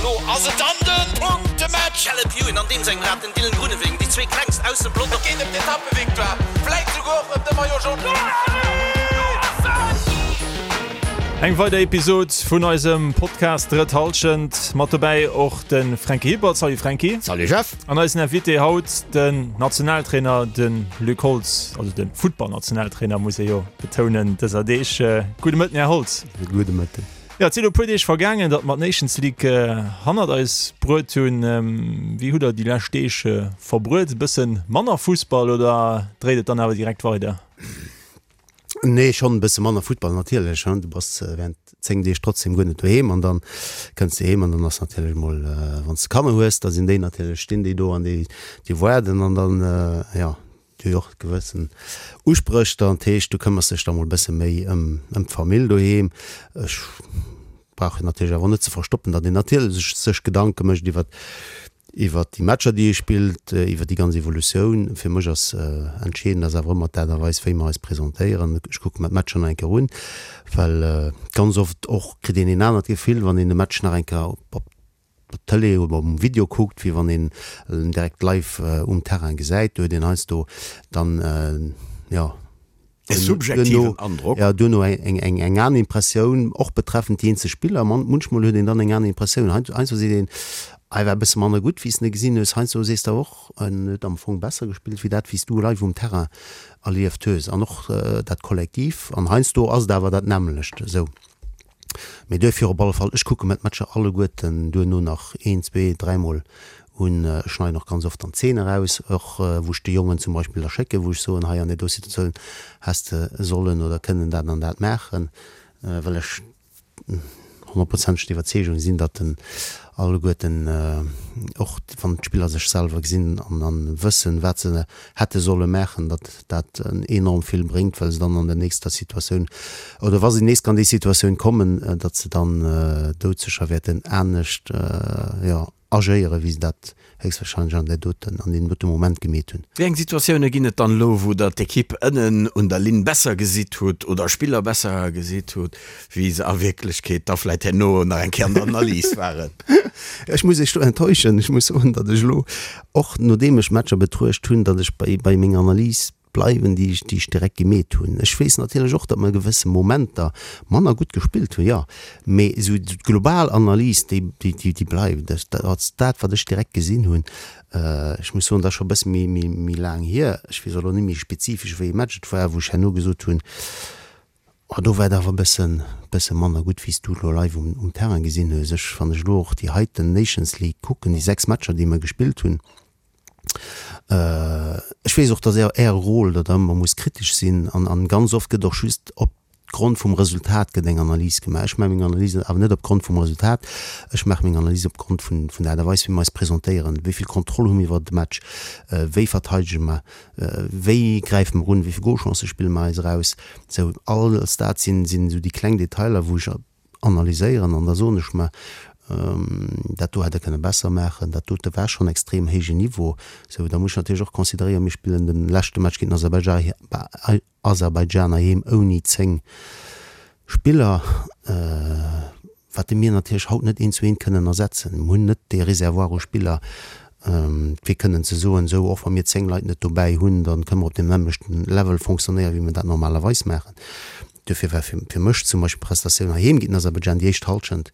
Elo ass et dann de Punktematch! Caleb Ewan an deem sengem Rad, den Dylan Groenewegen, déi zwee klengst aus dem Pelotong. Et geet ëm d'Etappevictoire, vläit souguer och ëm de Maillot Jaune. Eng weider Episod vun eisem Podcast Drëtt Hallschent. Mat dobäi och de Franky Hippert. Salut Franky. Salut Jeff. An eisen Invité haut den Nationaltrainer, de Luc Holtz, also de Futtballnationaltrainer muss ee jo betounen dëser Deeg. Gudde Mëtten, Här Holtz. Gudde Mëtten. Jo, et sinn elo e puer Deeg vergaangen, datt mer d'Nations League hannert eis bruet hunn. Wéi hutt Der déi lescht Deeg verbruet? E bësse manner Fussball oder dréit et dann awer direkt weider? Nee, schonn e bësse manner Futtball natierlech. Du bass während 10 Deeg trotzdem guer net doheem an dann kënns de heem an dann ass natierlech mol, wann s de Kanner hues, da sinn déi natierlech, stinn déi do an déi waarden an dann, jo. Déi huet och gewëssen Uspréch dann, dat heescht du këmmers dech da mol bësse méi ëm ëm d'Famill doheem. Ech brauch jo natierlech awer net ze verstoppen, datt een natierlech sech Gedanke mécht iwwer iwwer déi Matcher déi ee spillt, iwwer déi ganz Evolutioun. Fir mech ass entscheedend ass awer ëmmer d'Aart a Weis wéi mer eis presentéieren. Ech kucke mer d'Matcher nach eng Kéier un, well ganz oft och kritt een een anert Gefill wann een e Match nach eng Kéier op op der Tëlee oder um Video kuckt, wéi wann een en direkt live um Terrain gesäit. Do huet een heiansdo dann, jo, E subjektiven Androck. Jo, duerno eng eng aner Impressioun, och betreffend déi eenzel Spiller. Munchmol huet een dann eng aner Impressioun. Heiansdo seet een, hei war e bësse manner gutt, wéi s de e gesinn hues. Heiansdo sees de awer och, en huet am Fong besser gespillt, wéi dat, wéi s du live um Terrain erlieft hues. An och dat Kollektiv. An heiansdo ass et awer dat nämmlecht esou. Mee duerfir op alle Fall, ech kucke mer d'Matcher alleguerten duerno nach een, zwee, dräimol un. Ech schneiden och ganz oft dann Zeene eraus, och wou ech de Jongen zum Beispill da schécken, wou ech soen, hei an där do Situatioun häss de sollen oder kënnen dat an dat maachen, well ech honnertprozenteg der Iwwerzeegung sinn, datt en alleguerten, och wann d'Spiller sech selwer gesinn an wëssen, wat se hätte solle maachen, datt dat enorm vill bréngt, well se dann an der nächster Situatioun, oder wa se nees an déi Situatioun kommen, datt se dann doudsécher wäerten anescht, jo, agéieren, wéi se dat héchstwahrscheinlech an där doten, an deem dote Moment gemeet hunn. Wéi eng Situatioune ginn et dann elo, wou Der d'Ekipp ënnen un der Linn besser gesitt hutt oder Spiller besser gesitt hutt, wéi se a Wierklechkeet da vläit herno nach eng Kéier an der Analys waren? Ech muss Iech do enttäuschen. Ech muss soen, datt ech elo, och nodeem ech Matcher betruecht hunn, datt ech bei, bei menger Analys bleiwen, déi ech, déi ech direkt gemeet hunn. Ech weess natierlech och, datt mer gewësse Momenter manner gutt gespillt hunn, jo, mee esou d'global Analys, déi, déi, déi bleift. Dat ass dat, wat ech direkt gesinn hunn. Ech muss soen, dat ass scho e bësse méi, méi, méi laang hier. Ech weess och elo net méi spezifesch, wéi ee Match et war, wou ech herno gesot hunn, Oh, do war et awer e bëssen, bësse manner gutt, wéi s du elo live um, um Terrain gesinn hues. Ech, wann ech elo och déi heiten Nations League kucken, déi 6 Matcher, déi mer gespillt hunn, ech weess och, dass Är, Äre Rôle, datt Der ëmmer musst kritesch sinn an, an ganz oft gëtt och just op Grond vum Resultat gëtt eng Analys gemaach. Ech maache meng Analysen awer net op Grond vum Resultat, ech maache meng Analyse op Grond vun, vun der Aart a Weis, wéi mer eis presentéieren, wéi vill Kontroll hu mir iwwer de Match, wéi verteidege mer, Wéi gräife mer un, wéi vill Golchancë spille mer eis eraus? Sou, alles dat sinn, sinn esou déi kleng Detailer, wou ech analyséieren an da soen ech mer, dat do hätt Der kënne besser maachen, dat dote war schonn extrem héijen Niveau. Sou, da muss ech natierlech och consideréieren, mir spillen de leschte Match géint den Aserbaidschan heiheem ouni 10 Spiller, wat mir natierlech haut net eent zu eent kënnen ersetzen. Mir hunn net dee Réservoir u Spiller, fir kënnen ze soen, esou, och wa mir 10 Leit net dobäi hunn, da kënne mer op deem nämmlechten Level fonctionnéieren, wéi mir dat normalerweis maachen. Duerfir war fir mech zum Beispill d'Prestatioun heiheem géint den Aserbaidschan, déi éischt Hallschent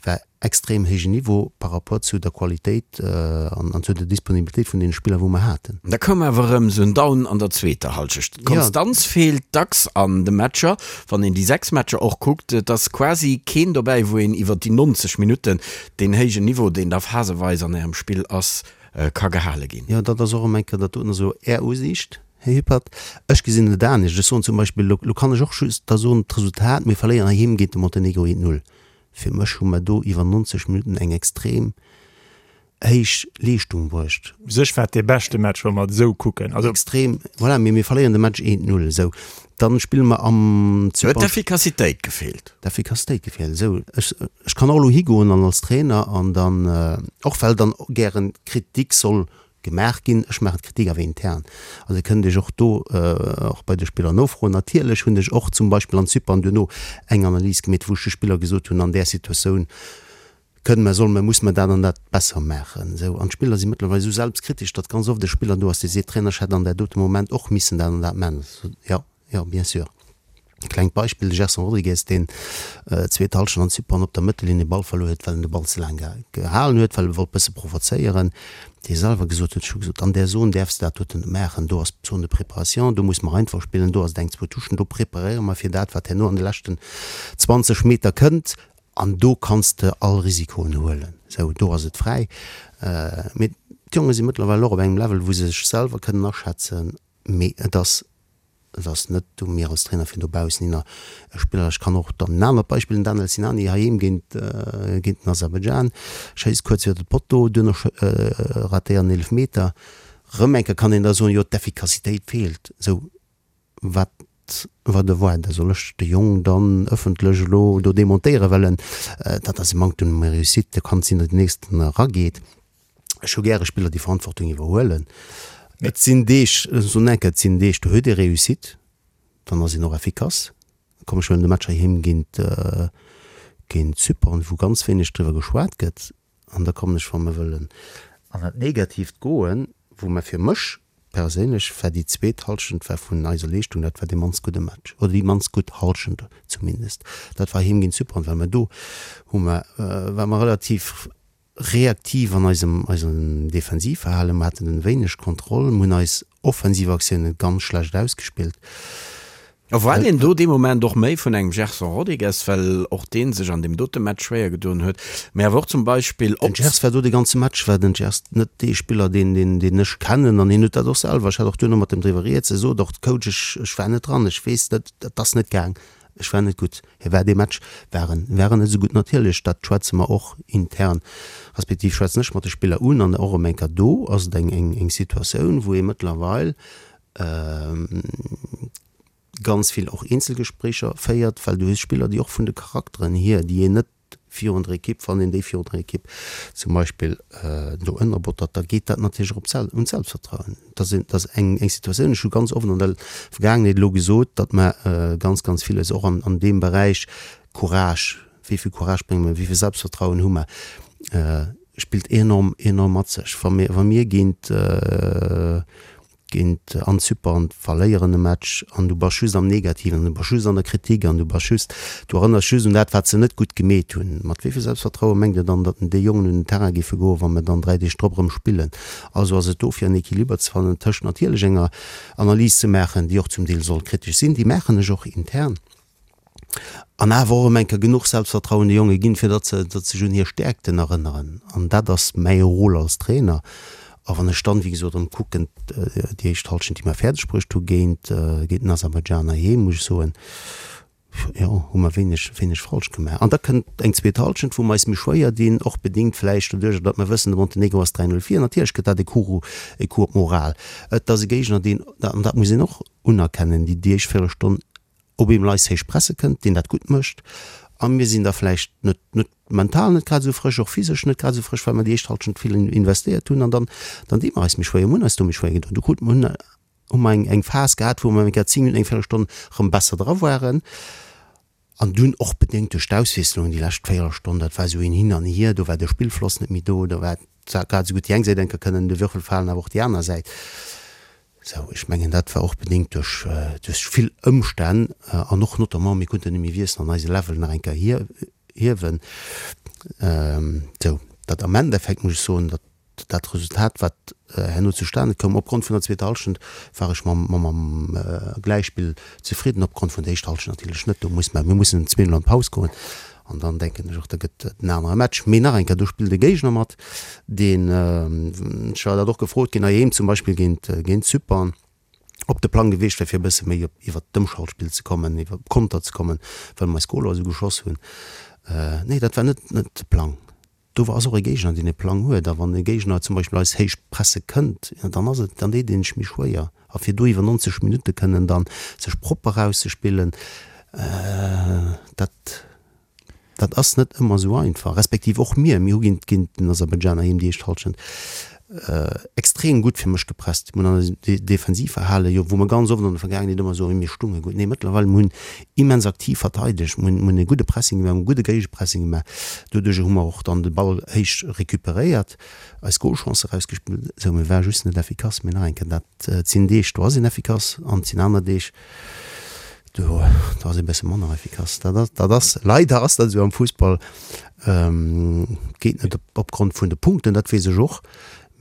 war extrem héijen Niveau par rapport zu der Qualitéit an zu der Disponibilitéit vun deene Spiller, wou mer haten. Da koum awer erëm sou en Down an der zweeter Hallschecht. D'Konstanz feelt dacks an de Matcher. Wann een déi 6 Matcher och kuckt, et ass quasi keen dobäi, wou een iwwer déi 90 Minutten deen héijen Niveau, deen da phaseweis an Ärem Spill ass, ka gehale ginn. Jo, dat ass och erëm eng Kéier, dat doten ass elo Är Usiicht, Här Hippert. Ech gesinn et anescht. Ech soen zum Beispill, elo kann ech och just da soen, d'Resultat, mir verléieren heiheem géint de Montenegro 1, 0. Fir mech hu mer do iwwer 90 Minutten eng extrem héich Leeschtung bruecht. U sech war et dee beschte Match, wa mer et esou kucken. Also. Extrem, voilà, mee mir verléieren de Match 1, 0, esou. Dann spille mer am Zypern. Huet d'Effikassitéit gefeelt. D'Effikassitéit gefeelt, esou. Ech, ech kann och elo higoen an als Trainer an dann, och well dann gären Kritik soll Gemaach ginn. Ech maachen d'Kritik awer intern. Also Dir kënnt Iech och do och bei de Spiller nofroen. Natierlech hunn ech och zum Beispill an Zypern duerno eng Analys gemeet, wou ech de Spiller gesot hunn, an där Situatioun. Kënnen mer, solle mer, musse mer dat an dat besser maachen? Esou. An d'Spiller si mëttlerweil esou selbstkritesch, datt ganz oft e Spiller do ass, dee seet, Trainer, ech hätt an där dote Moment och missen dat an dat maachen. Jo, jo, bien sûr. E klengt Beispill, de Gerson Rodrigues, deen zweet Hallschent an Zypern op der Mëttellinn e Ball verluer huet, well en de Ball ze laang gehalen huet, well e wollt bësse provozéieren, dee selwer gesot huet, ech hu gesot, an där Zon däerfs de dat doten net maachen, do ass d'Zone de préparation, do muss mer einfach spillen, do ass et eng, zwou Touchen, do preparéiere mer fir dat, wat herno an de leschten 20 Meter kënnt. An do kanns de all Risikoen huelen. Sou, do ass et fräi. Mee d'Jonge si mëttlerweil och op engem Level, wou se sech selwer kënnen aschätzen. Mee et ass, et ass net u mir als Trainer, fir dobaussen hinner e Spiller, ech kann och dann en anert Beispill, den Daniel Sinani heiheem géint, géint den Aserbaidschan, schéisst kuerz iwwer de Potto, duerno ratéiert en Eelefmeter. Rëm eng Kéier kann een da soen, jo d'Effikassitéit feelt. Sou, Wat war de Voix? Da soll ech de Jong dann ëffentlech elo do demontéieren, well en, dat ass e Manktum de réussite, do kann et sinn, datt den nächsten erageet. Ech hu gäre Spiller, déi Verantwortung iwwerhuelen. Et sinn Deeg, ech soen eng Kéier, et sinn Deeg, do huet ee Réussite, dann ass een och effikass. Komm, ech huelen de Match heiheem géint, géint Zypern, wou ganz wéineg driwwer geschwat gëtt. An da kommen ech, wa mer wëllen an dat Negatiivt goen, wou mer fir mech perséinlech war déi zweet Hallschent war vun eiser Leeschtung, dat war dee mannst gudde Match oder déi mannst gutt Hallschent zumindest. Dat war heem géint Zypern, well mer do hu mer, ware mer relativ reaktiv an eisem, eisem Defensivverhalen, mer haten wéineg Kontroll, mer hunn eis offensiv Aktiounen ganz schlecht ausgespillt. Erwaart een do dee Moment och méi vun engem Gerson Rodrigues, well och dee sech an deem dote Match schwéier gedoen huet, mä awer och zum Beispill op. Den Gers war do de ganze Match war den Gers net dee Spiller deen deen deen ech kennen an hien huet dat och selwer, ech hat och duerno mat em driwwer rieds, e sot och, Coach ech ech war net dran, ech weess net, et ass net gaang, ech war net gutt. Hie war dee Match war en war en net esou gutt. Natierlech dat schwätze mer och intern, respektiv schwätzen ech mat de Spiller un an och erëm eng Kéier do ass et eng eng eng Situatioun wou ee mëttlerweil ganz vill och Eenzelgespréicher féiert, well du hues Spiller, déi och vun de Charakteren hier, déi een net virun der Ekipp, wann een déi virun der Ekipp zum Beispill do ënnerbottert, da geet dat natierlech och op d'Sel un d'Selbstvertrauen. Dat ass, dat ass eng, eng Situatioun, ech hu ganz oft an der Vergaangenheet elo gesot, datt mer ganz, ganz villes och an, an deem Beräich Courage, wéi vill Courage brénge mer, wéi vill Selbstvertrauen hu mer, spillt enorm, enorm mat sech. Wa mir, wa mir géint, géint an Zypern verléieren e Match an du bass just am Negativen an du bass just an der Kritik an du bass just, du erënners just un dat, wat se net gutt gemeet hunn. Mat wéi vill Selbstvertraue mengt Dir dann, datt déi Jongen un den Terrain géife goen, wa mer dann 3 Deeg drop erëm spillen? Also ass et do fir en Equiliber ze fannen tëscht natierlech enger Analys ze maachen, déi och zum Deel soll kritesch sinn, déi maachen ech och intern, An awer och erëm eng Kéier genuch Selbstvertrauen de Jonge ginn, fir datt se, datt se sech un hir Stäerkten erënneren. An dat ass mäi Rôle als Trainer. A wann ech dann, wéi gesot, erëm kucken, déi éischt Hallschent, déi mer fäerdeg bruecht hu géint, géint den Aserbaidschan heiheem, muss ech soen, jo, hu mer wéineg, wéineg falsch gemaach. An da kënnt eng zweet Hallschent, wou mer eis méi schwéier dinn, och bedingt vläicht doduercher, datt mer wëssen, de Montenegro ass 3, 0 vir. Natierlech gëtt dat e Coup, e Coup op d'Moral. Et ass e Géigner, deen, an dat muss een och unerkennen, déi déi éischt Véierelstonn op eemol eis héich presse kënnt, deen dat gutt mécht, a mir sinn da vläicht net, net mental net grad esou frësch, och physesch net grad esou frësch, well mer déi éischt Hallschent vill investéiert hunn an dann, dann di mer eis méi schwéier, mir hunn eis do méi schwéier gedoen. Du krut, hunn, hu mer eng, eng Phas gehat, wou mer eng Kéier 10 Minutten, eng Véierelstonn erëm besser dra waren an dunn och bedéngt duerch d'Auswiesslungen déi lescht Véierelstonn, dat war esou een Hin an Hier, do war de Spillfloss net méi do, do war grad esou gutt déi eng Säit eng Kéier kënnen de Würfel falen, awer och déi aner Säit. Sou, ech mengen, dat war och bedéngt duerch, duerch vill Ëmstänn an och notamment, mir konnten net méi wiesselen an eise Level nach eng Kéier hiewen. Sou, datt am Endeffekt, muss ech soen, datt dat Resultat, wat herno zustane koum, opgrond vun der zweeter Hallschent, war ech mam, mam Gläichspill zefridden, opgrond vun der éischter Hallschent natierlech net. Do muss mer, mir mussen zweemol an d'Paus goen an dann denken ech och, da gëtt et en anere Match. Mee nach eng Kéier, do spillt e Géigner mat, deen, ech war dat och gefrot ginn, heiheem zum Beispill géint, géint Zypern, op de Plang gewiescht wär, fir e bësse méi op, iwwert d'Ëmschaltspill ze kommen, iwwer Konter ze kommen, well mer eis Goler esou geschoss hunn. Nee, dat war net, net de Plang. Do ass och e Géigner, deen e Plang huet. A wann e Géigner zum Beispill eis héich presse kënnt, jo, dann ass et, dann deet een sech méi schwéier. A fir do iwwer 90 Minutte kënnen dann sech propper erauszespillen, dat, dat ass net ëmmer esou einfach. Respektiv och mir, mir hu géint, géint den Aserbaidschan heiheem déi éischt Hallschent. extrem gutt fir mech gepresst. Mir hunn an eisem Defensivverhale jo, wou mer ganz oft an der Vergaangenheet ëmmer soen, mir stunge gutt, nee mëttlerweil, mir hunn immens aktiv verteidegt, mir hunn, mir hunn e gudde Pressing gemaach, mir hunn e gudde Géigepressing gemaach. Doduerjer hu mer och dann de Ball héich recuperéiert, eis Golchancë erausgespillt. Esou, mir ware just net effikass. Mee nach eng Kéier, dat sinn Deeg, do ass een effikass an et sinn aner Deeg, do, do ass ee bësse manner effikass. Dat ass, dat ass, leider ass dat esou am Fussball. Geet net opgrond vun de Punkten, dat weess ech och,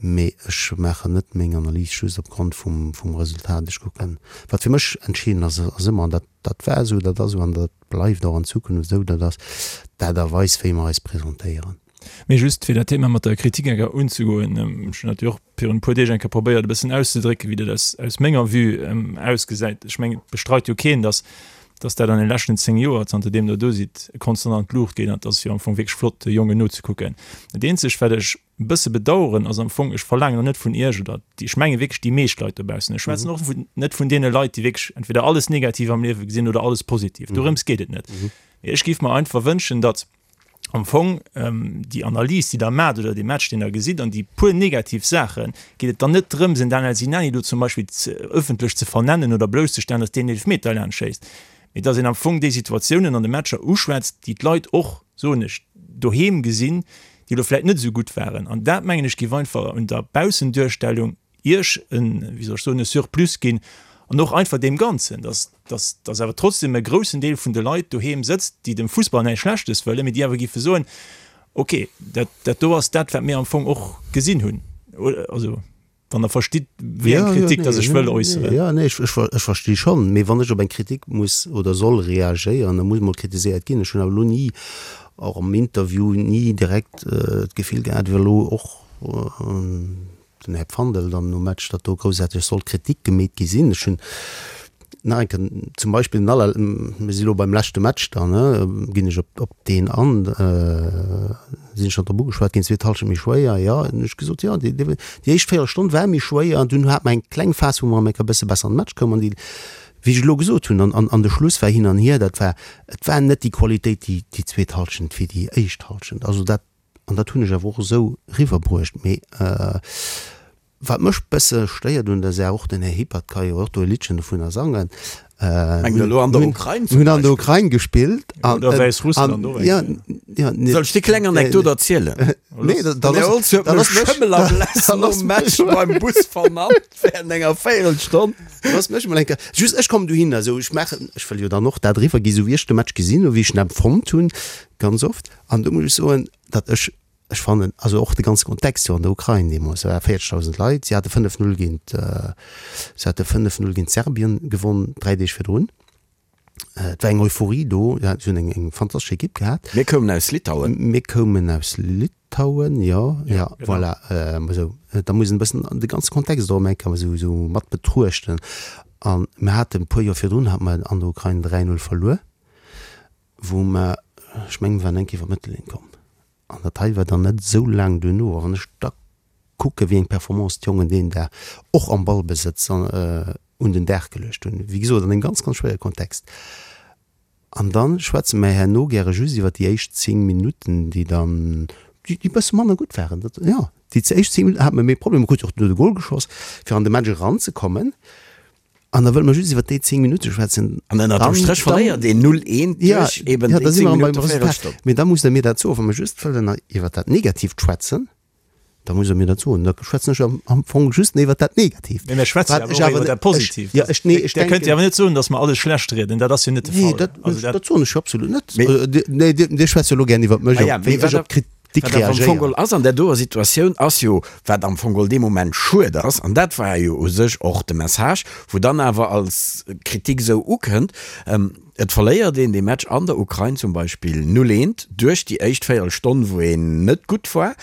mee ech maachen net meng Analys just opgrond vum vum Resultat. Ech kucken, wat fir mech entscheedend ass, ass ëmmer, an dat dat war esou, dat ass esou an dat bleift och an Zukunft esou, dat ass d'Aart a Weis, wéi mer eis presentéieren. Mee just fir dat Thema mat der Kritik eng Kéier unzegoen, ech hunn dat jo och virun e puer Deeg eng Kéier probéiert e bëssen auszedrécken, wéi dat aus aus menger Vue ausgesäit. Ech mengen, et bestreit jo keen, datt dass dat an de leschten 10 Joer, zanter deem Der do sidd, konstant an d'Luucht geet an et ass jo am Fong wierklech flott, de Jongen nozekucken. Dat eenzegt, wat ech e bësse bedauern, ass am Fong, ech verlaangen och net vun Iech oder déi, ech menge wierklech déi meescht Leit dobaussen, ech schwätzen och vun, net vun deene Leit, déi wierklech entweder alles negativ am Liewe gesinn oder alles positiv, dorëms geet et net. Mee ech géif mer einfach wënschen, datt am Fong déi Analys, déi Der maacht oder dee Match, deen Der gesitt an déi puer negativ Saachen, geet et dann net drëms, en Daniel Sinani do zum Beispill ëffentlech ze vernennen oder blousszestellen, datt deen Eelefmeter laanscht schéisst, mee datt een am Fong déi Situatiounen an de Matcher uschwätzt, déi d'Leit och, soen ech, doheem gesinn, déi elo vläicht net esou gutt waren. An dat, mengen ech, géif einfach un der Baussenduerstellung Iech en, wéi soll ech soen, e Surplus ginn an och einfach deem Ganzen, dass, dass, dass awer trotzdem e groussen Deel vun de Leit doheem sëtzt, déi dem Fussball näischt Schlechtes wëllen, mee déi awer géife soen, okay, dat, dat do ass dat, wat mir am Fong och gesinn hunn. Also, wann Der verstitt, wéi eng Kritik dass ech wëll äusseren. Jo, nee, ech, ech, ech versti schonn. Mee wann ech op eng Kritik muss oder soll reagéieren, da muss emol kritiséiert ginn. Ech hunn awer elo ni, och am Interview, ni direkt d'Gefill gehat, wéi elo och, den Här Pfandel dann nom Match, datt do groussaarteg sollt Kritik gemeet gi sinn. Ech hunn nach eng Kéier zum Beispill den aller, mir si lo beim leschte Match dann, ne, ginn ech op, op deen an, sinn ech schonn drop ugeschwat ginn, zweet Hallschent méi schwéier, jo, hunn ech gesot, jo, déi, déi éischt Véierelstonn war méi schwéier an dunn hat mer eng kleng Phas, wou mer eng Kéier e bësse besser an de Match koumen an déi, wéi ech elo gesot hunn, an, an, an de Schluss war hin an hier, dat war, et war net déi Qualitéit déi, déi zweet Hallschent wéi déi éischt Hallschent. Also dat An dat hunn ech awer och esou eriwwerbruecht. Mee wat mech bësse stéiert un der Saach, och den Här Hippert ka jo och do e Liddchen dovunner sangen, Mengt Der elo an der Ukrain zum Mir hunn an der Ukrain gespillt. Oder Wäissrussland och eng Kéier. Soll ech déi kleng Anekdot erzielen? Nee, da Den Här Holtz huet mech Schëmmel a Bless nom Match beim Bus vernannt während enger Véierelstonn. Looss mech emol eng Kéier, just ech kommen dohinner, esou ech maachen, ech wëll jo dann och dat eriwwergi sou wéi ech de Match gesinn hunn, wéi ech en empfonnt hunn, ganz oft. An do muss ech soen, datt ech, ech fannen, also och de ganze Kontext jo an der Ukrain deemools, da ware 40.000 Leit, si hate 5, 0 géint, si hate 5, 0 géint Serbien gewonn, 3 Deeg virdrun. Et war eng Euphorie do, si hunn eng, eng fantastesch Ekipp gehat. Mir koumen aus Litauen. Mir koumen aus Litauen, jo, jo, voilà, esou. Da muss een e bëssen de ganze Kontext och eng Kéier esou, esou mat betruechten. A mir haten e puer Joer virdrun hate mer an der Ukrain 3, 0 verluer. wou mer, ech mengen, mir waren eng Kéier iwwer d'Mëttellinn komm, an dat hei war dann net esou laang duerno. A wann ech da kucke wéi eng Performance d'Jongen deen Dag och am Ballbesëtz un den Dag geluecht hunn, wéi gesot an engem ganz, ganz schwéiere Kontext, an da schwätze mer herno gäre just iwwer déi éischt 10 Minutten, déi dann, déi e bësse manner gutt waren, dat, jo, déi éischt 10 Minutten hate mer méi Problemer, gutt, och duerno de Gol geschoss, fir an de Match eranzekommen. An da wëlle mer just iwwer déi 10 Minutte schwätzen. An ënnert dem Stréch verléiert een 0, 1 duerch eben déi 10 Minutte Véierelstonn. Mee da musst Der mir dat soen, wa mer just wëllen iwwer dat Negatiivt schwätzen, da musst Der mir dat soen. Da schwätzen ech am Fong just iwwer dat Negatiivt. Mee mir schwätzen jo awer och iwwer dat Positiivt. Ja, ech, nee, ech denken. Der kënnt jo awer net soen, datt mer alles schlecht rieden. Dat ass jo net de Fall. Nee, dat, dat soen ech jo absolut net. Nee, Dir schwätzt jo elo gären iwwer mech, wéi ech op d'Kritik. Wat awer am Fong geholl ass an där doer Situatioun, ass jo, wat am Fong geholl dee Moment schued ass, an dat war jo u sech och de Message, wou dann awer als Kritik esou ukënnt, Et verléiert een dee Match an der Ukrain zum Beispill 0, 1 duerch déi éischt Véierelstonn, wou een net gutt war,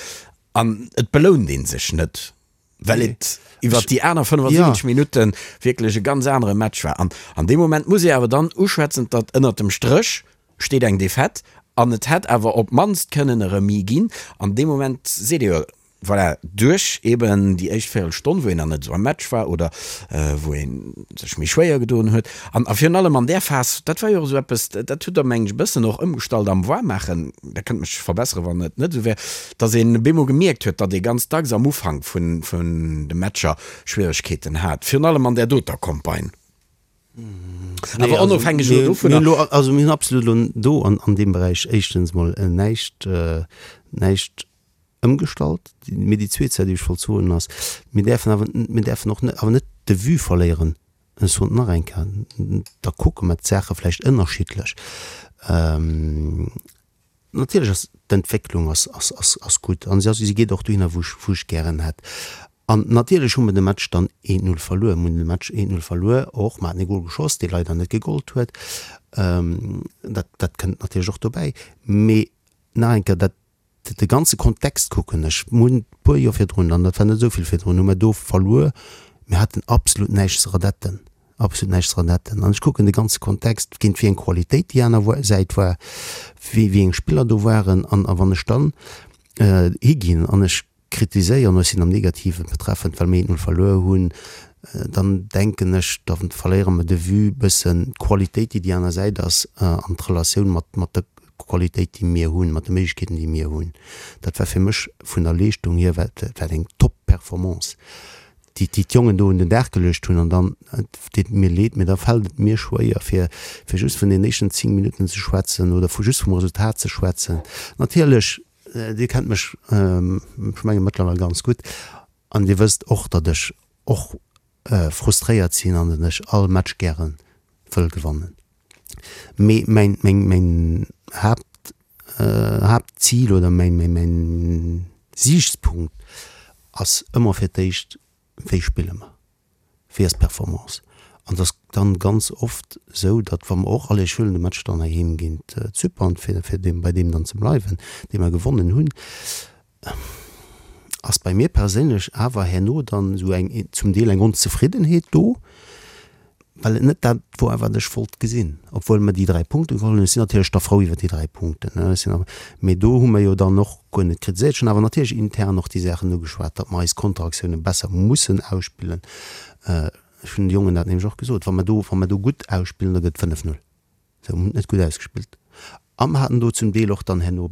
an et belount ee sech net. Well et iwwert déi aner 75 Minutte wierklech e ganz anere Match war. An an deem Moment muss ee awer dann uschwätzen, datt ënnert dem Stréch steet eng Defaite an et hätt awer op d'mannst kënnen e Remis ginn. An deem Moment seet ee jo. Voilà, duerch eben déi éischt Véierelstonn, wou een nach net esou am Match war oder wou ee sech méi schwéier gedoen huet. An a virun allem an där Phas, dat war jo och esou eppes, dat hutt Der, meng ech, e bëssen och ëmgestallt am Waarmaachen, Der kënnt mech verbesseren, wann et net esou wär, datt een bemol gemierkt huet, datt ee ganz dacks am Ufank vun de Matcher Schwieregkeeten hat, virun allem an där doter Campagne. Awer onofhängeg elo dovunner. Also mir hunn absolut elo do an deem Beräich éischtens mol näischt, näischt ëmgestallt. Mee déi zweet Saach, déi ech wollt soen, ass, Mir däerfen awer, mir däerfen och net, awer net de Vue verléieren. Ech soen et nach eng Kéier, da kucke mer d'Saache vläicht ënnerschiddlech. Natierlech ass d'Entwécklung ass, ass, ass, ass gutt an si ass, si geet och dohinner, wou ech, wou ech gären hätt. An natierlech hu mer de Match dann 1, 0 verluer. Mir hunn de Match 1, 0 verluer, och mer haten e Gol geschoss, dee leider net gegollt huet. Dat, dat kënnt natierlech och dobäi. Mee nach eng Kéier, dat De ganze Kontext kucken ech. Mir hunn e puer Joer virdrun, an dat war net esou vill virdrun, hu mer do verluer. Mir haten absolut näischt ze redetten, absolut näischt ze redetten. An ech kucken de ganze Kontext, géint wéi eng Qualitéit déi aner Säit war, wéi eng Spiller do waren. An a wann ech dann higinn an ech kritiséieren, ech sinn am Negativen betreffend, well mir 1, 0 verluer hunn, dann denken ech, da verléiere mer de Vue bëssen d'Qualitéit, déi déi aner Säit ass, an d'Relatioun mat mat der Qualitéit, déi mir hunn, mat de Méiglechkeeten, déi mir hunn. Dat war fir mech vun der Leeschtung hier war dat eng Top-Performance, déi déi d'Jongen do un den Dag geluecht hunn. An dann, et deet mir leed, mee da fält et mir schwéier, fir fir just vun den éischten 10 Minutten ze schwätzen oder vu just vum Resultat ze schwätzen. Natierlech Dir kennt mech, ech menge mëttlerweil ganz gutt, an Dir wësst och, datt ech och frustréiert sinn an datt ech all Match gäre wëll gewannen. Mee mäin, mäin, mäin Haapt, Haaptzil oder mäin, mäin, mäin Siichtspunkt ass ëmmer fir d'éischt, Wéi spille mer? Wéi ass d'Performance? An et ass dann ganz oft esou, datt wa mer och, allez ech huelen de Match dann heiheem géint Zypern, fir fir deem bei deem dann ze bleiwen, dee mer gewonnen hunn, ass bei mir perséinlech awer herno dann esou eng zum Deel eng Onzefriddenheet do, well et net dat wor, wat ech wollt gesinn, obwuel mer déi 3 Punkte geholl hunn. Ech sinn natierlech da frou iwwer déi 3 Punkten, ne, ech sinn awer, mee do hu mer jo dann och guer net kritiséiert. Ech hunn awer natierlech intern och déi Saachen ugeschwat, datt mer eis Konteraktioune besser mussen ausspillen. Ech hunn de Jongen dat nämlech och gesot, wa mer do, wa mer do gutt ausspillen, da gëtt et 5, 0. Se hunn net gutt ausgespillt a mer haten do zum Deel och dann herno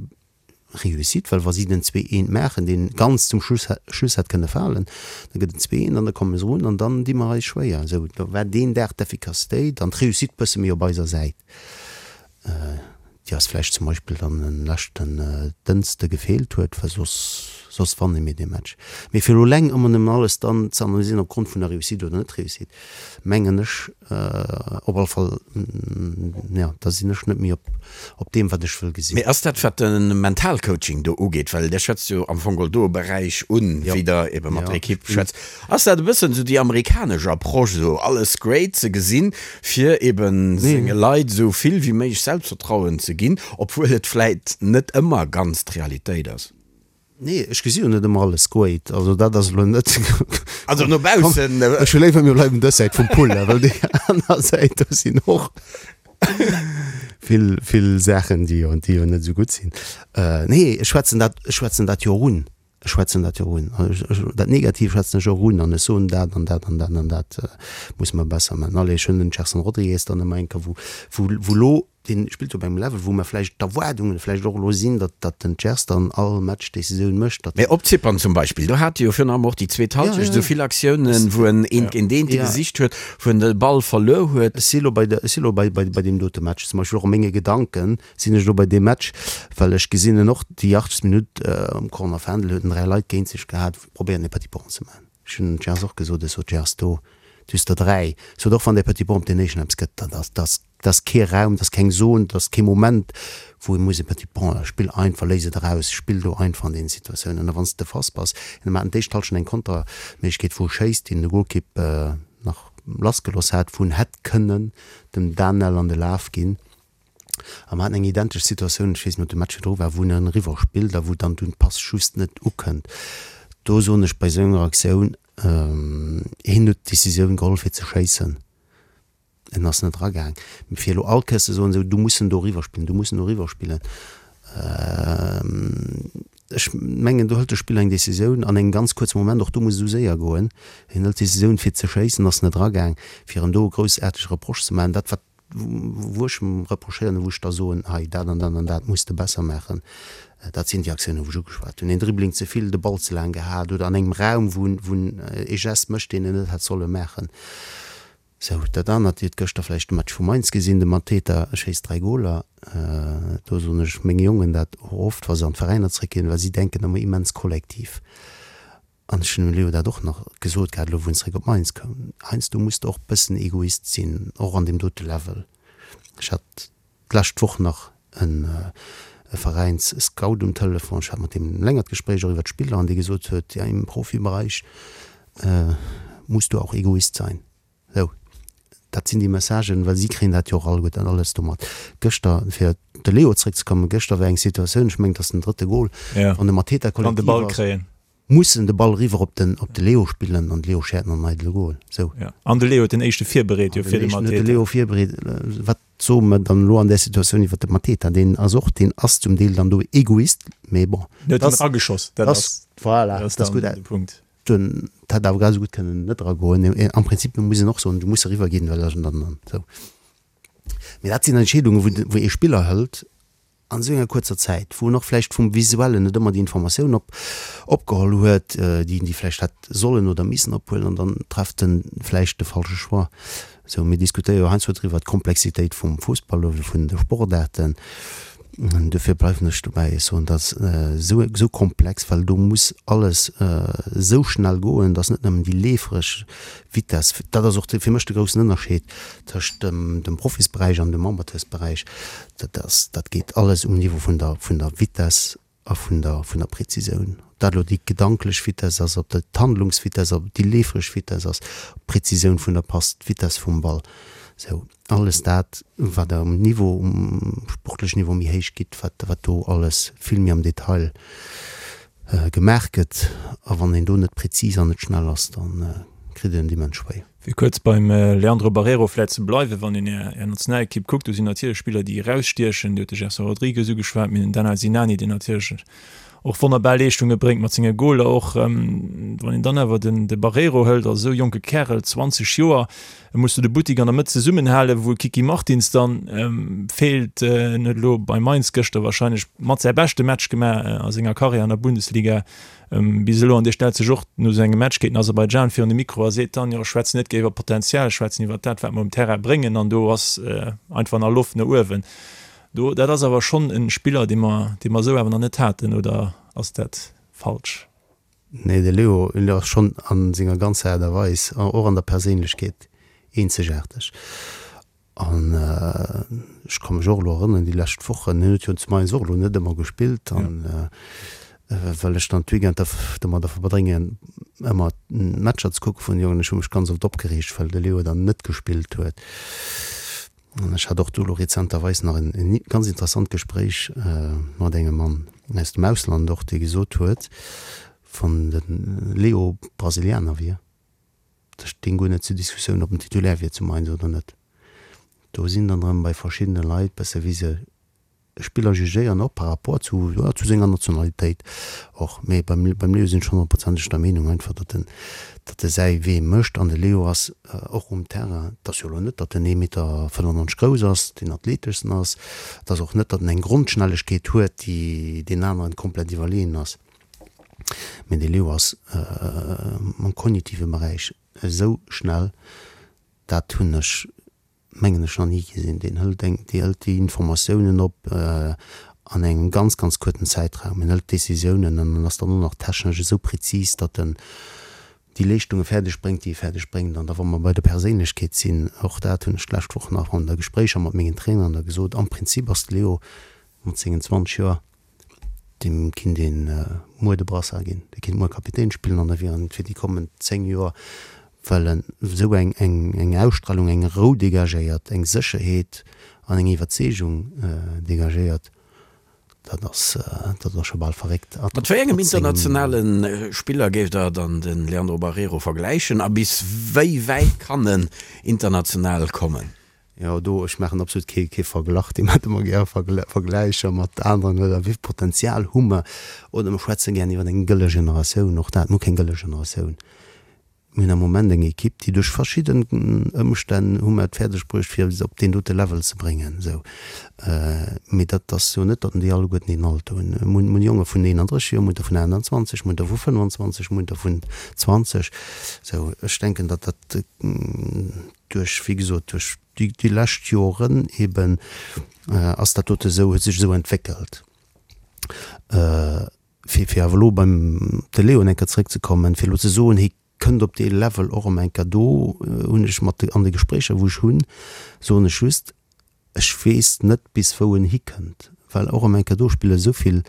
Réussite, well wa si den zwee eent maachen, deen ganz zum Schluss Schluss hätt kënne falen, da gëtt et zwee eent an da komme se erun an dann di mer eis schwéier. Esou, da war deen Dag d'Efficacitéit an d'Réussite bësse méi op eiser Säit. Déi eis vläicht zum Beispill dann en leschten Dënste gefeelt huet, well soss, soss wanne mir dee Match. Mee fir elo eleng ëmmer nëmmen alles dann ze analysieren opgrond vun der Réussite oder Net-Réussite, mengen ech op alle Fall, jo, da sinn ech net méi op, op deem, wat ech wëll gesinn. Mee ass dat, wat de Mentalcoaching do ugeet, well Der schwätzt jo am Fong geholl do e Beräich un, wéi Der ebe mat der Ekipp schwätzt, ass dat e bëssen esou déi amerikanesch Approche, esou alles great ze gesinn, fir eben senge Leit esou vill wéi méiglech Selbstvertrauen ze ginn, obwuel et vläit net ëmmer ganz d'Realitéit ass? Nee, ech gesi jo net ëmmer alles great. Also dat ass elo net. Also no baussen. Ech hu léiwer mir bleiwen dës Säit vum Pull, well déi aner Säit do sinn och vill, vill Saachen, déi jo, déi jo net esou gutt sinn. Nee, ech schwätzen dat, ech schwätzen dat jo och un. Ech schwätzen dat jo och un. Dat Negativ schwätzen ech och un an ech soen dat an dat an dat an dat musse mer besser maachen. Allez, ech hunn den Gerson Rodrigues dann ëmmer eng Kéier, wou, wou, wou elo, dee spillt op engem Level, wou mer vläicht d'Erwaardungen vläicht och elo sinn, datt, datt den Gers dann all Match Decisioun mécht, datt. Mee op Zypern zum Beispill, do hat e jo virun allem och déi zweet Halschecht esou vill Aktiounen, wou en eent géint eent gesicht huet, wou en de Ball verluer huet. Ech si elo bei der, ech si elo bei, bei, bei deem dote Match zum Beispill, och a menge Gedanken sinn ech elo bei deem Match, well ech gesinn en och déi 80. Minutt um Corner Fändel huet en 3 Leit géint sech gehat, probéieren e Petit Pont ze maachen. Ech hunn dem Gers och gesot, ech sot, Gers, do, du hues der 3, sot och wann dee Petit Pont op deen éischten eppes gëtt, dat ass, dat ass, dat ass kee Raum, dat ass keng Zone, dat ass kee Moment, wou ee muss e Petit Pont, spill einfach, léis et eraus, spill do einfach an deenen Situatiounen. A wann s de fast bass, mir haten d'éischt Hallschent eng Konterméiglechkeet, wou e schéisst, deen de Golkipp nach lassgeloss hat, wou en hätt kënnen dem Danel an de Laf ginn. A mer haten eng identesch Situatioun, ech weess net, ob de Match virdru war, wou en eriwwer spillt a wou dann dunn d'Pass just net ukënnt. Do soen ech bei esou enger Aktioun, hien huet d'Decisioun geholl fir ze schéissen, en ass net eragaang. Mee fir elo all Kéiers ze soen, esou du muss en do eriwwer spillen, du muss en do eriwwer spillen. Ech mengen, do hëlt de Spiller eng Decisioun an engem ganz kuerze Moment, och do muss et esou séier goen, hien hëlt d'Decisioun fir ze schéissen, ass net eragaang, fir em do e groussaartege Reproche ze maachen. Dat wat wou ech em reprochéieren a wou ech da soen, hei dat an dat an dat muss de besser maachen, dat sinn déi Aktiounen wou ech ugeschwat hunn, een Dribbling ze vill, de Ball ze laang gehat oder an engem Raum wou en wou en ee Geste mécht, deen en net hätt solle maachen. Sou, dat anert, Dir hutt gëschter vläicht de Match vu Mainz gesinn, de Mateta schéisst 3 Goler. Do soen ech menge Jongen dat och oft, wa se an d'Veräiner zréckginn, well si denken ëmmer immens kollektiv. An ech hunn dem Leo dat och nach gesot gehat, elo wou en zréck op Mainz koum, Heiansdo muss de och bëssen Egoist sinn, och an deem dote Level. Ech hat d'lescht Woch nach e Veräins-Scout um Telefon, ech hat mat deem e längert Gespréich och iwwer d'Spiller an dee gesot huet, ja im Profibereich musst du auch Egoist sein. Sou, dat sinn déi Messagen, well si kréien dat jo och alleguerten alles do mat. Gëschter, fir op de Leo zréckzekommen, gëschter war eng Situatioun, ech mengen et ass den drëtte Gol, wann de Mateta kollektiv ass, muss en de Ball eriwwer op den op de Leo spillen an de Leo schäert an eidele Gol. Sou. An de Leo huet den éischte virbereet jo fir de Mateta. Huet de Leo virbereet. Wat soe mer dann elo an där Situatioun iwwer de Mateta? Deen ass och, deen ass zum Deel dann do Egoist, mee bon. En huet en erageschoss, dat ass, voilà, dat ass gutt. De Punkt. Den hätt awer grad esou gutt kënnen net eragoen. Am Prinzip muss een och soen, du muss eriwwer ginn, well dann, dann, sou. Mee dat sinn Entscheedungen, wou, wou ee Spiller hëlt an esou enger kuerzer Zäit, wou en och vläicht vum Visuellen net ëmmer déi Informatioun op, opgeholl huet, déi en déi vläicht hätt sollen oder missen ophuelen, an dann trefft en vläicht de falsche Choix. Sou, mir diskutéiere jo heiansdo driwwer, d'Komplexitéit vum Fussball oder vun de Sportaarten. Duerfir bleiwen ech dobäi, ech soen, dat ass esou, esou komplex, well do muss alles esou schnell goen, dass net nëmmen déi leefereg Vitess, dat ass och fir mech de groussen Ënnerscheed tëscht dem, dem Profisberäich an dem Amateursberäich, Dat ass, dat geet alles um Niveau vun der, vun der Vitess a vun der, vun der Präzisioun. Ob dat elo déi gedanklech Vitess ass, ob dat d'Handlungsvitess ass, ob et déi leefereg Vitess ass, d'Präzisioun vun der Pass, d'Vitess vum Ball, sou alles dat, wat Der um Niveau, um sportlechen Niveau méi héich gitt, wat, wat do alles vill méi am Detail gemaach gëtt. A wann een do net präzis an net schnell ass, da kritt een et immens schwéier. Fir kuerz beim Leandro Barreiro vläit ze bleiwen, wann een Är Nationalekipp kuckt, do sinn natierlech Spiller, déi erausstiechen. Dir hutt de Gerson Rodrigues ugeschwat, mir hunn den Daniel Sinani, deen natierlech och wonnerbar Leeschtunge bréngt mat senge Goler och. Wann een dann awer den de Barreiro hëlt, als esou jonke Kärel, 20 Joer, muss du de Buttik an der Mëtt zesummenhalen, wou Kiki Martins dann feelt. En huet elo bei Mainz gëschter warscheinlech mat säi beschte Match gemaach a senger Karriär an der Bundesliga. Bis elo, an dee stellt sech och no sou engem Match géint den Aserbaidschan virun de Mikro a seet dann, jo ech schwätzen net géiwer Potenzial, ech schwätzen iwwer dat wat mer um Terrain bréngen an do ass einfach nach Loft no uewen. Do, dat ass awer schonn e Spiller, dee mer, dee mer esou awer nach net haten, oder ass dat falsch? Nee, de Leo ass schonn a senger ganzer Aart a Weis, och an der Perséinlechkeet, eenzegaarteg. An ech ka mech och elo erënneren, déi lescht Wochen, hien huet jo zu Mainz och elo net ëmmer gespillt, an well ech dann d'Weekender domadder verbréngen, ëmmer d'Matcher ze kucke vun de Jongen, ech hu mech ganz oft opgereegt, well de Leo dann net gespillt huet. An ech hat och do elo rezenterweis nach en ganz interessant Gespréich mat engem Mann aus dem Ausland och, dee gesot huet, wann de Leo Brasilianer wier, Dat stéing guer net zur Diskussioun, ob en Titulaire wier zu Mainz oder net. Do sinn dann erëm bei verschiddene Leit bësse wéi se e Spiller jugéieren, och par rapport zu, jo, zu senger Nationalitéit och. Mee beim, beim Leo sinn ech honnertprozenteg der Meenung einfach, datt en, datt e säi Wee mécht. An de Leo ass och um Terrain, et ass jo elo net, datt en ee Meter 95 grouss ass, deen athleteschsten ass, et ass och net, datt en eng Grondschnellegkeet huet, déi deenen aneren komplett iwwerleeën ass. Mee de Leo ass am kognitive Beräich esou schnell, dat hunn ech, mengen ech, nach ni gesinn. Deen hëlt eng, dee hëlt déi Informatiounen op an engem ganz, ganz kuerten Zäitraum. En hëlt Decisiounen an en ass dann och nach technesch esou prezis, datt en déi Leeschtunge fäerdeg bréngt, déi e fäerdeg bréngt. An da wa mer bei der Perséinlechkeet sinn, och dat hunn ech d'lescht Woch nach an der Gespréicher mat mengen Traineren da gesot, am Prinzip ass de Leo mat sengen 20 Joer, Deem kinnt een muer de Brassard ginn, dee kinnt muer Kapitän spillen an da wier en fir déi kommend 10 Joer, well en esou eng eng Ausstralung, eng Rou dégagéiert, eng Sécherheet an eng Iwwerzeegung dégagéiert, dat ass dat ass scho bal verréckt. Mat wéi engem internationale Spiller géift Der dann de Leandro Barreiro vergläichen a bis wéi wäit kann en international kommen? Jo, do, ech maachen absolut kee, kee Verglach, déi maache ëmmer gär Vergläicher mat aneren, oder wéi vill Potenzial hu mer, oder mer schwätze gär iwwer eng gëlle Generatioun, och dat, mir hu keng gëlle Generatioun. Mir hunn am Moment eng Ekipp, déi duerch verschidden Ëmstänn hu mer et fäerdeg bruecht, fir se op deen dote Level ze bréngen. Esou. Mee dat ass jo net, datt déi alleguerten deen Alter hunn. Mir hunn, mir hunn Jonge vun 31 Joer, mir hunn der vun 28, mir hunn der vu 25, mir hunn der vun 20. Esou, ech denken, datt dat duerch, wéi gesot, duerch déi, déi lescht Joren eeben ass dat dote esou, huet sech esou entwéckelt. Fir, fir awer elo beim de Léon eng Kéier zrëckzekommen, fir elo ze soen, hie kënnt op dee Level och erëm eng Kéier, do hunn ech mat de, an de Gespréicher wou ech hunn, soen ech just, ech weess net bis wou en hikënnt, well och erëm eng Kéier do spille esou vill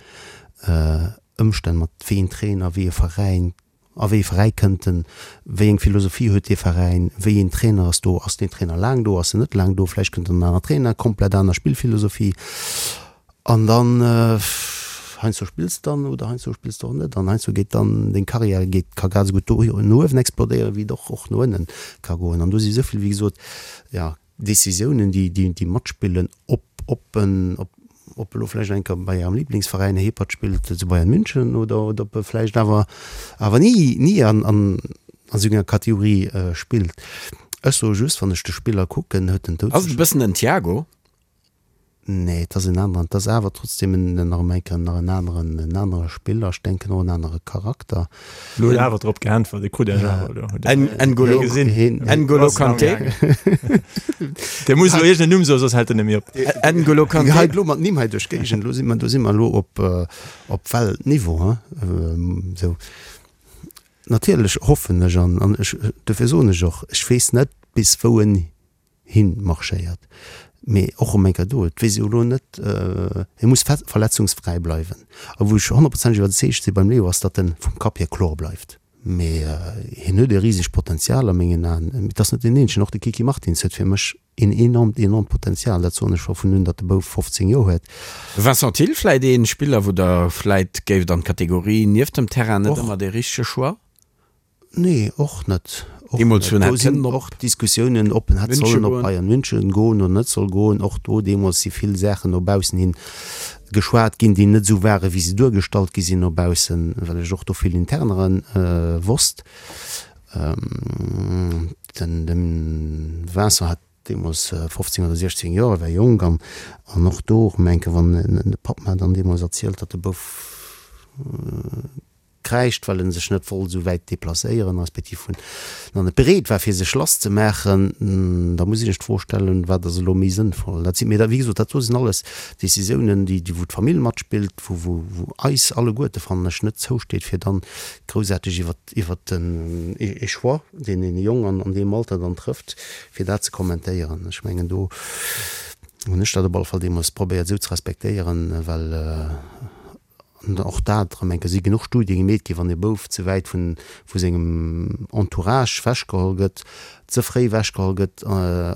Ëmstänn mat, wéi een Trainer, wéi e Veräin, A wéi ee Veräi kënnt en? Wéi eng Philosophie huet dee Veräin? Wéi een Trainer ass do? Ass deen Trainer laang do? Ass en net laang do? Vläicht kënnt en aner Trainer, komplett aner Spillphilosophie. An dann, heiansdo spills de dann oder heiansdo spills de och net. An heiansdo geet dann deng Karriär geet, ka grad esou gutt do no uewen explodéieren, wéi et och och no ënnen ka goen. An do si esou vill, wéi gesot, jo, Decisiounen, déi, déi, déi matspillen, ob, ob en, ob, ob elo vläicht eng Kéier bei Ärem Liblingsveräin Hepert spillt, zu Bayern München, oder, oder ob e vläicht awer, awer ni, ni an, an, an esou enger Kategorie spillt. Ech soe just, wann ech de Spiller kucken, huet en Ass et e bëssen den Thiago? Nee, et ass en aneren. Et ass awer trotzdem en, nach eng Kéier nach en aneren, en anere Spiller. Ech denken och en anere Charakter. Lo huet awer drop geäntwert, e krut Iech awer elo. Huet En, N'Golo, gesinn. N'Golo Kanté. Dee muss elo iergend en Numm soen, soss hält en net méi op. N'Golo Kanté. Hei elo mat Nimm hei duerch d'Géigend, elo si mer, do si mer elo op, op Weltniveau, hein, esou. Natierlech hoffen ech an, an ech, dofir soen ech och, ech weess net bis wou en hin marschéiert. Mee och erëm eng Kéier do, et weess ee jo elo net, hie muss verletzungsfräi bleiwen. A wou ech honnertprozenteg iwwerzeegt si beim Leo ass, datt en vum Kapp hier kloer bleift. Mee hien huet e risegt Potenzial a mengen Aen. Mee et ass net deen eenzegen, och de Kiki Martins huet fir mech een enormt, enormt Potenzial. Dat soen ech scho vun un, datt de Bouf 15 Joer huet. Vincent Thill, Vläit ee Spiller, wou Der vläit géift an d'Kategorie nieft dem Terrain net ëmmer dee richtege Choix? Nee, och net. Och Deemools net. hunn Do hätt sinn kënnen op och Diskussiounen, ob en hätt Münche sollen op goen. Bayern München goen oder net soll goen. Och do deemools si vill Saachen no baussen hin geschwat ginn, déi net esou ware wéi se duergestallt gi sinn no baussen, well ech och do vill Internere wosst. Den de Vincent hat deemools 15 oder 16 Joer, e war jonk an an och do erëm eng Kéier, wann de Papp mer dann deemools erzielt, datt de Bouf Kräischt, well en sech net wollt esou wäit deplacéieren, respektiv vun nach net bereet war fir sech lass ze maachen, da muss ee sech d'Fro stellen, wat ass elo méi sënnvoll. Dat si mee da wéi gesot, dat do sinn alles Décisiounen, déi déi wou d'Famill matspillt, wou wou wou eis alleguerte fannen ech net zousteet fir dann groussaarteg iwwert iwwert den ee Choix, deen een Jong an an deem Alter dann trëfft, fir dat ze kommentéieren. Ech mengen do hunn ech dat op alle Fall deemools probéiert esou ze respektéieren, well An och dat erëm eng Kéier, si genuch Studie gemeet ginn, wann e Bouf ze wäit vun vu sengem Entourage wechgeholl gëtt, ze fréi wechgeholl gëtt,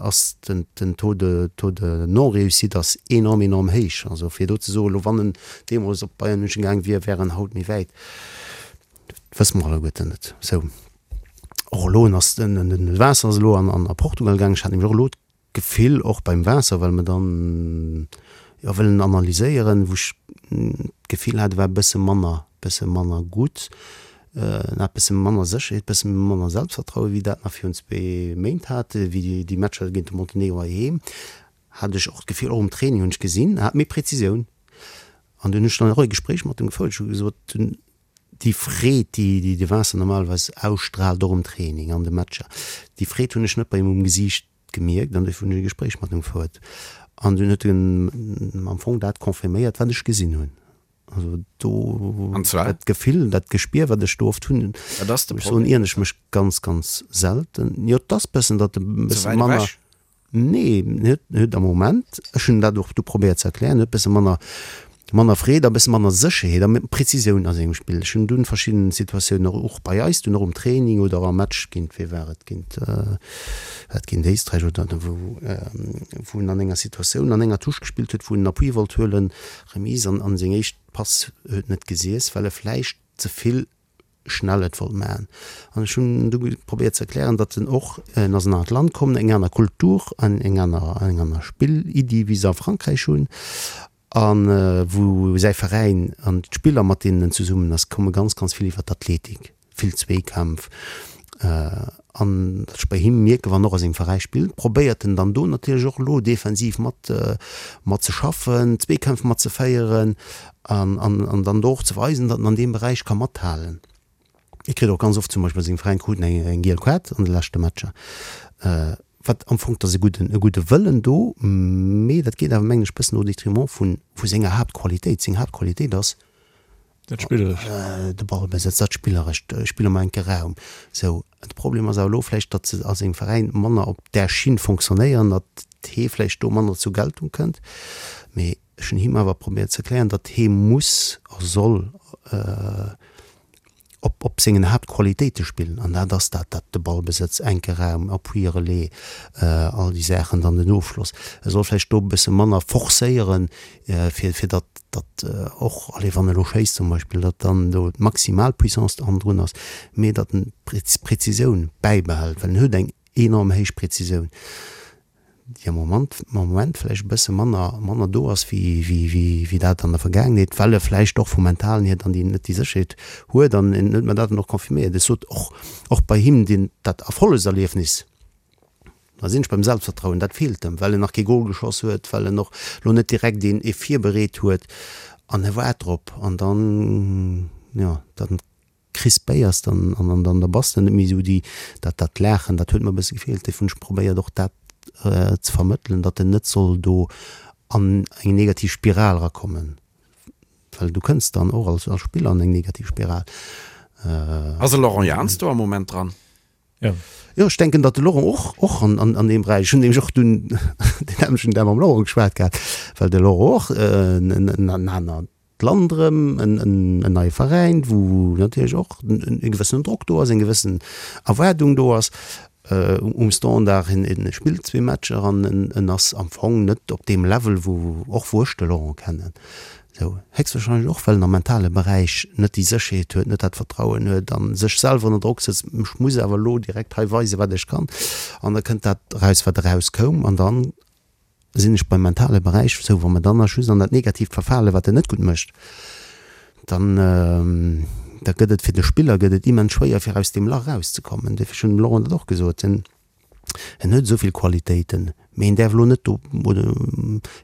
ass den den Taux de Taux de non-réussite ass enorm, enorm héich. Also fir do ze soen, elo wann en deemools op Bayern München gaang wier, wär en haut méi wäit, dat wësse mer alleguerten net. Sou, och elo en ass den den Vincent ass elo an an a Portugal gaang, ech hat nämlech och elo Gefill och beim Waasser, well mer dann jo wëllen analyséieren, wou ech d'Gefill hat, e war e bësse manner, bësse manner gutt, en hat bësse manner Sécherheet, bësse manner Selbstvertrauen, wéi dat nach virun zwee Méint hat, wéi déi Matcher géint de Montenegro heiheem, hat ech och d'Gefill, och um Training hunn ech gesinn, en hat méi Präzisioun. An dunn hunn ech dann och e Gespréich mat em gefouert, ech hu gesot, déi Freed, déi de Vincent normalerweis ausstraalt, och um Training, an de Matcher, déi Freed hunn ech net bei him um Gesiicht gemierkt an dofir hunn ech e Gespréich mat him gefouert an dunn huet en am Fong dat confirméiert, wat ech gesinn hunn. Also do, An zwar? dat Gefill, dat Gespier, wat ech do oft hunn, Wat ass de ech soen, Problem? ieren ech mech ganz, ganz selten. Jo, et ass bëssen, datt e Ze bësse wäit manner. ewech? Nee, en huet, en huet am Moment, ech hunn dat och du probéiert ze erklären, huet bësse manner, manner Freed a bësse manner Sécherheet a Präzisioun a sengem Spill. Ech hunn dunn verschidden Situatiounen och, och bei eis dunn och um Training oder am Match géint, wee war et, géint, war et géint Éisträich oder wou, wou en an enger Situatioun an enger Touche gespillt huet, wou en Appui wollt huelen, Remise, an, an seng éischt Pass huet net gesiess, well e vläicht ze vill. Schnell et wollt maachen. An ech hunn du probéiert ze erklären, datt en och, en ass an en anert Land komm, eng aner Kultur an eng aner, eng aner Spilliddi wéi se a Frankräich hunn a wou säi Veräin an d'Spiller mat deenen en zesummen ass, komme ganz, ganz vill iwwer d'Athletik, vill Zweekämpf. An datt ech bei him mierken, wann en och a sengem Veräi spillt, probéiert en dann do natierlech och elo defensiv mat, mat ze schaffen, Zweekämpf mat ze féieren An, an, an dann do och ze weisen, datt en an deem Beräich ka mathalen. Hie kritt och ganz oft zum Beispill seng Veräin kruten eng, eng giel Kaart an de leschte Matcher. Wat am Fong, 't ass e gudden, e gudde Wëllen do, mee dat geet awer, mengen ech, bëssen au détriment vu, vu senger Haaptqualitéit. Seng Haaptqualitéit ass Dat Spillerescht. de Ballbesëtz, dat Spillerescht, Spill am enke Raum. Sou, de Problem ass awer elo vläicht, datt se a sengem Veräin manner op där Schinn fonctionnéieren, datt hee vläicht do manner zur Geltung kënnt. Mee Ech hunn him awer probéiert ze erklären, datt hee muss a soll op op sengen Haaptqualitéite spillen, an dat ass dat, dat de Ballbesëtz, enke Raum, Appui-Relais, all déi Saachen, dann den Ofschloss. E soll vläicht do e bësse manner forcéieren, fir fir datt datt och, allez, wann e lo schéisst zum Beispill, datt dann do d'maximal Puissance hannendrun ass, mee datt en d'Präzisioun bäibehält, well en huet eng enorm héich Präzisioun. déi am Moment, am Moment vläicht e bësse manner, manner do ass wéi, wéi, wéi, wéi dat an der Vergaangenheet, well e vläicht och vum Mentalen hier dann déi, net déi Sécherheet huet an en huet mer dat dann och confirméiert. Ech sot och, och bei him deen, dat Erfollegserliefnis, da sinn ech beim Selbstvertrauen, dat feelt em, well en nach kee Gol geschoss huet, well en och lo net direkt een, ee virbereet huet an e waart drop an dann, jo, dann. Crispéiers dann an an da bass de net méi esou déi, dat dat Laachen, dat huet mer e bësse gefeelt. Dofir hunn ech probéiert och dat ze vermëttelen, datt en net soll do an eng negativ Spiral erakommen, well du kënns dann och als als Spiller an eng negativ Spiral. Ass de Laurent Jans do am Moment dran? Jo. Jo, ech denken, datt de Laurent och och an an an deem Beräich, ech hunn nämlech och dunn deen nämmlechten Dag mam Laurent geschwat gehat, well de Laurent och en en anert d'Land erëm, en neie Veräin, wou natierlech och e gewëssenen Drock do ass, eng gewëssen Erwaardung do ass um Standard. En spillt zwee Matcher an en ass am Fong net op deem Level, wou och wou ech de Laurent kennen. Esou héchstwahrscheinlech och, well en am mentale Beräich net déi Sécherheet huet, net dat Vertrauen huet a sech selwer ënner Drock sëtzt, ech muss awer elo direkt hei weisen, wat ech kann. An da kënnt dat eraus, wat erauskoum. An dann sinn ech beim mentale Beräich, sou wa mer dann nach just an dat Negatiivt verfalen, wat en net gutt mécht, dann da gëtt et fir de Spiller gëtt et immens schwéier fir aus deem Lach erauszekommen. Duerfir, ech hunn dem Laurent dat och gesot, en en huet esou vill Qualitéiten, mee en däerf elo net do oder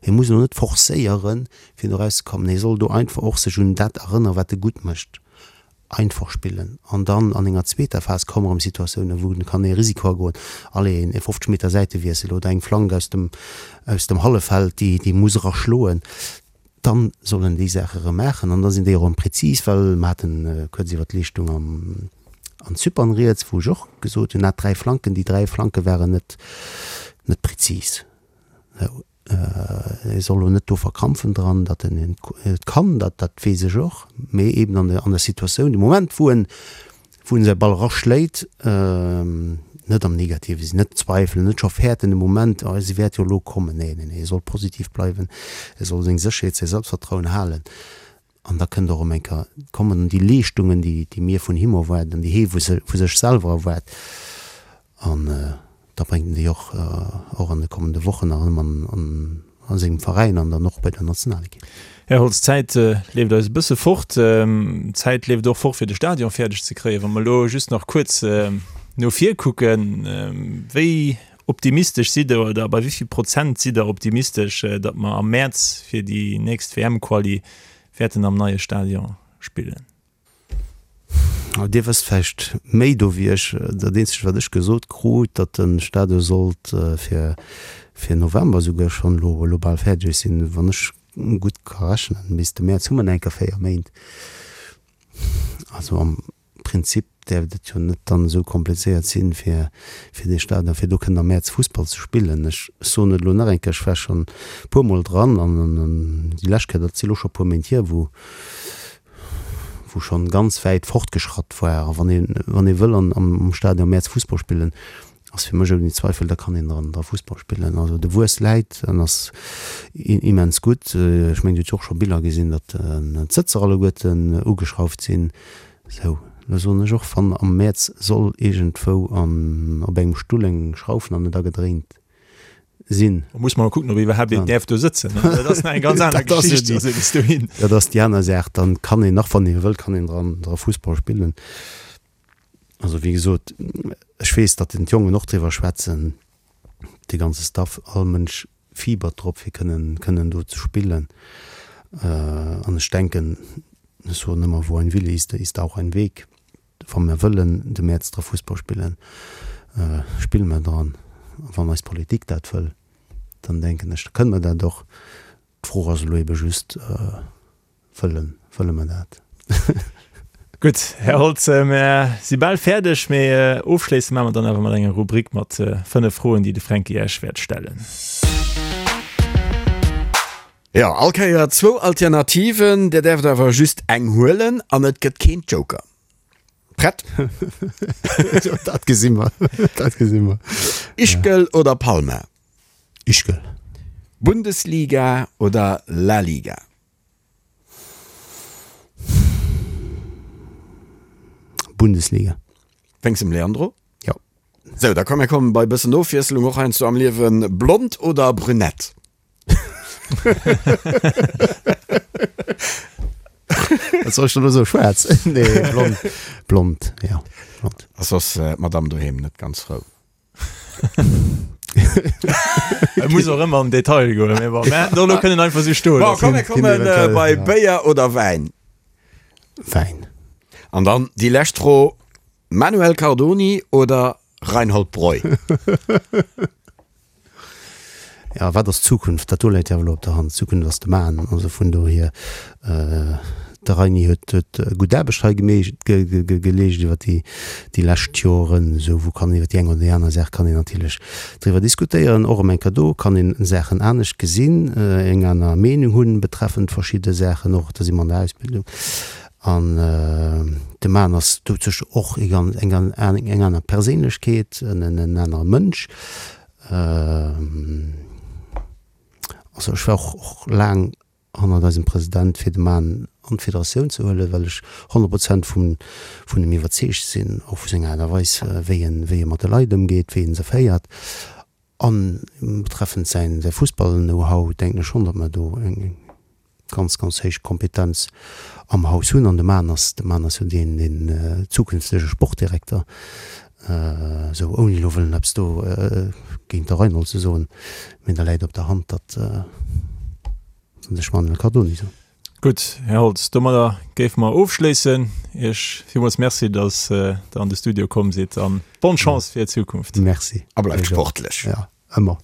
hie muss elo net forcéieren, fir do erauszekommen. Hie soll do einfach och sech un dat erënneren, wat e gutt mécht. einfach spillen an dann an enger zweeter Phas komme rëm Situatiounen, wou en kann ee Risiko agoen, allez een 50 Meter Säitewiessel oder eng Flank aus dem aus dem Halleffeld, déi déi muss era schloen, dann soll en déi Saache rëm maachen an da sinn déi och erëm prezis, well mer haten kuerz iwwert d'Leeschtung am an Zypern rieds, wou ech och gesot hunn, hat 3 Flanken, déi 3 Flanke waren net net prezis. E soll elo net do verkrampfen dran, datt en et kann, dat dat weess ech och, mee eben an der an der Situatioun, de Moment wou en wou en säi Ball eraschléit, net am Negative sinn, net zweifelen, net scho fäerten de Moment, oh se wäert jo elo kommen. Nee, nee, nee, e soll positiv bleiwen, e soll seng Sécherheet, säi Selbstvertrauen halen. An da kënnt och erëm eng Kéier, kommen dann déi Leeschtungen, déi, déi mir vun him erwaarden, déi hee vu sech selwer erwaart. An da bréngt en déi och, och an de kommende Wochen nach erëm an, an, a sengem Veräin an dann och bei der Nationalekipp. Här Holtz, d'Zäit leeft eis e bësse fort. D'Zäit leeft och fort, fir de Stadion fäerdeg ze kréien. Wa mer elo just nach kuerz no vir kucken, wéi Optimistesch sidd Der oder bei wéi vill Prozent sidd Der optimistesch, datt mer am Mäerz fir déi nächst WM-Quali wäerten am neie Stadion spillen? Dir wësst vläicht méi do wéi ech. Dat eenzegt wat ech gesot krut, datt de Stadion sollt fir fir November esouguer schonn elo elo bal fäerdeg sinn. Wann ech gutt ka rechnen, bis de Mäerz hu mer nach eng Kéier 4 Méint. Also am Prinzip däerft et jo net dann esou komplizéiert sinn, fir fir dee Stadion, fir do kënnen am Mäerz Fussball ze spillen. Ech soen et elo nach eng Kéier, ech war schonn e puermol dran an déi lescht Kéier, dat si elo scho e puer Méint hier, wou wou schonn ganz wäit fortgeschratt war. A wann ee wann ee wëll an am Stadion am Mäerz Fussball spillen, ass fir mech ouni Zweifel, da kann een dran dra Fussball spillen. Also de Wuess läit an ass immens gutt. Ech mengen, Dir hutt jo och scho Biller gesinn, datt d'Sëtzer alleguerten ugeschrauft sinn. Sou. Lo soen ech och, wann am Mäerz soll iergendwou an op engem Stull eng Schrauf nach net agedréint sinn. Da muss mer kucken, ob iwwerhaapt een däerf do sëtzen. Dat ass nach eng ganz aner Geschicht. Also bis dohin. Dat ass déi aner Saach. Dann kann een nach, wann ee wëllt, kann een dran dra Fussball spillen. Also wéi gesot, ech weess, datt den d'Jongen och driwwer schwätzen, de ganze Staff, all Mënsch fiebert drop fir kënnen kënnen do ze spillen. An ech denken, ech soen ëmmer, wo ein Wille ist, da ist auch ein Weg. Wa mer wëllen de Mäerz dra Fussball spillen, spille mer dran. A wann eis Politik dat wëll, dann denken ech, da kënne mer dat och. D'Fro ass elo ebe just, Wëllen, wëlle mer dat? Gutt, Här Holtz, mer si bal fäerdeg, mee ofschléisse maache mer dann awer mat enger Rubrik mat 5 Froen, déi de Fränki Iech wäert stellen. Jo, all Kéier zwou Alternativen, Dir däerft awer just eng huelen an et gëtt keen Joker. Prett? Dat gesi mer, dat gesi mer. Ischgl oder Palma? Ischgl. Bundesliga oder La Liga? Bundesliga. Wéinst dem Leandro? Jo. Sou, da komm mir kommen bei bëssen Ofwiesselung och heiansdo am Liewen. Blond oder brünett? Wat soll ech dann elo soen? Schwaarz? Nee, blond. Blond, ja, blond. Ass soss d'Madame doheem net ganz frou? Et muss och ëmmer am Detail goen, mee bon, mä do kënnen einfach sou stoen. Bon, komm mir kommen bei Béier oder Wäin? Wäin. An dann déi lescht Fro, Manuel Cardoni oder Reinhold Breu? Ja, wat ass d'Zukunft? Dat do läit jo awer elo op der Hand. D'Zukunft ass de Mann. Also vun dohier, de Reini huet huet gutt Aarbecht hei gemeescht, geleescht iwwer déi déi lescht Joren. Esou wou kann iwwer déi eng oder déi aner Saach kann een natierlech driwwer diskutéieren. Och ëm eng Kéier do kann een Saachen anescht gesinn, eng aner Meenung hunn betreffend verschidde Saachen och. Da si mer an der Ausbildung. An de Mann ass doduerch och eng eng eng aner Perséinlechkeet, en anere Mënsch. Also ech war och och laang hannert eisem President fir de Mann an d'Federatioun ze huelen, well ech 100 Prozent vun vun em iwwerzeegt sinn, och vu senger Aart a Weis wéi en wéi e mat de Leit ëmgeet, wéi en se féiert. An betreffend säin säi Fussball-Know-how denken ech schonn, datt mer do eng ganz, ganz héich Kompetenz am Haus hunn. An de Mann ass, de Mann ass jo deen, deen zukünftege Sportdirekter, esou ouni elo wëllen eppes do géint de Reinhold ze soen, mee da läit op der Hand, datt ech Manuel Cardoni soen. Gutt, Här Holtz, domadder géife mer ofschléissen. Iech villmools Merci, datt Der an de Studio komm sidd an bonne Chance fir d'Zukunft. Merci. A bleift sportlech. Jo, ëmmer.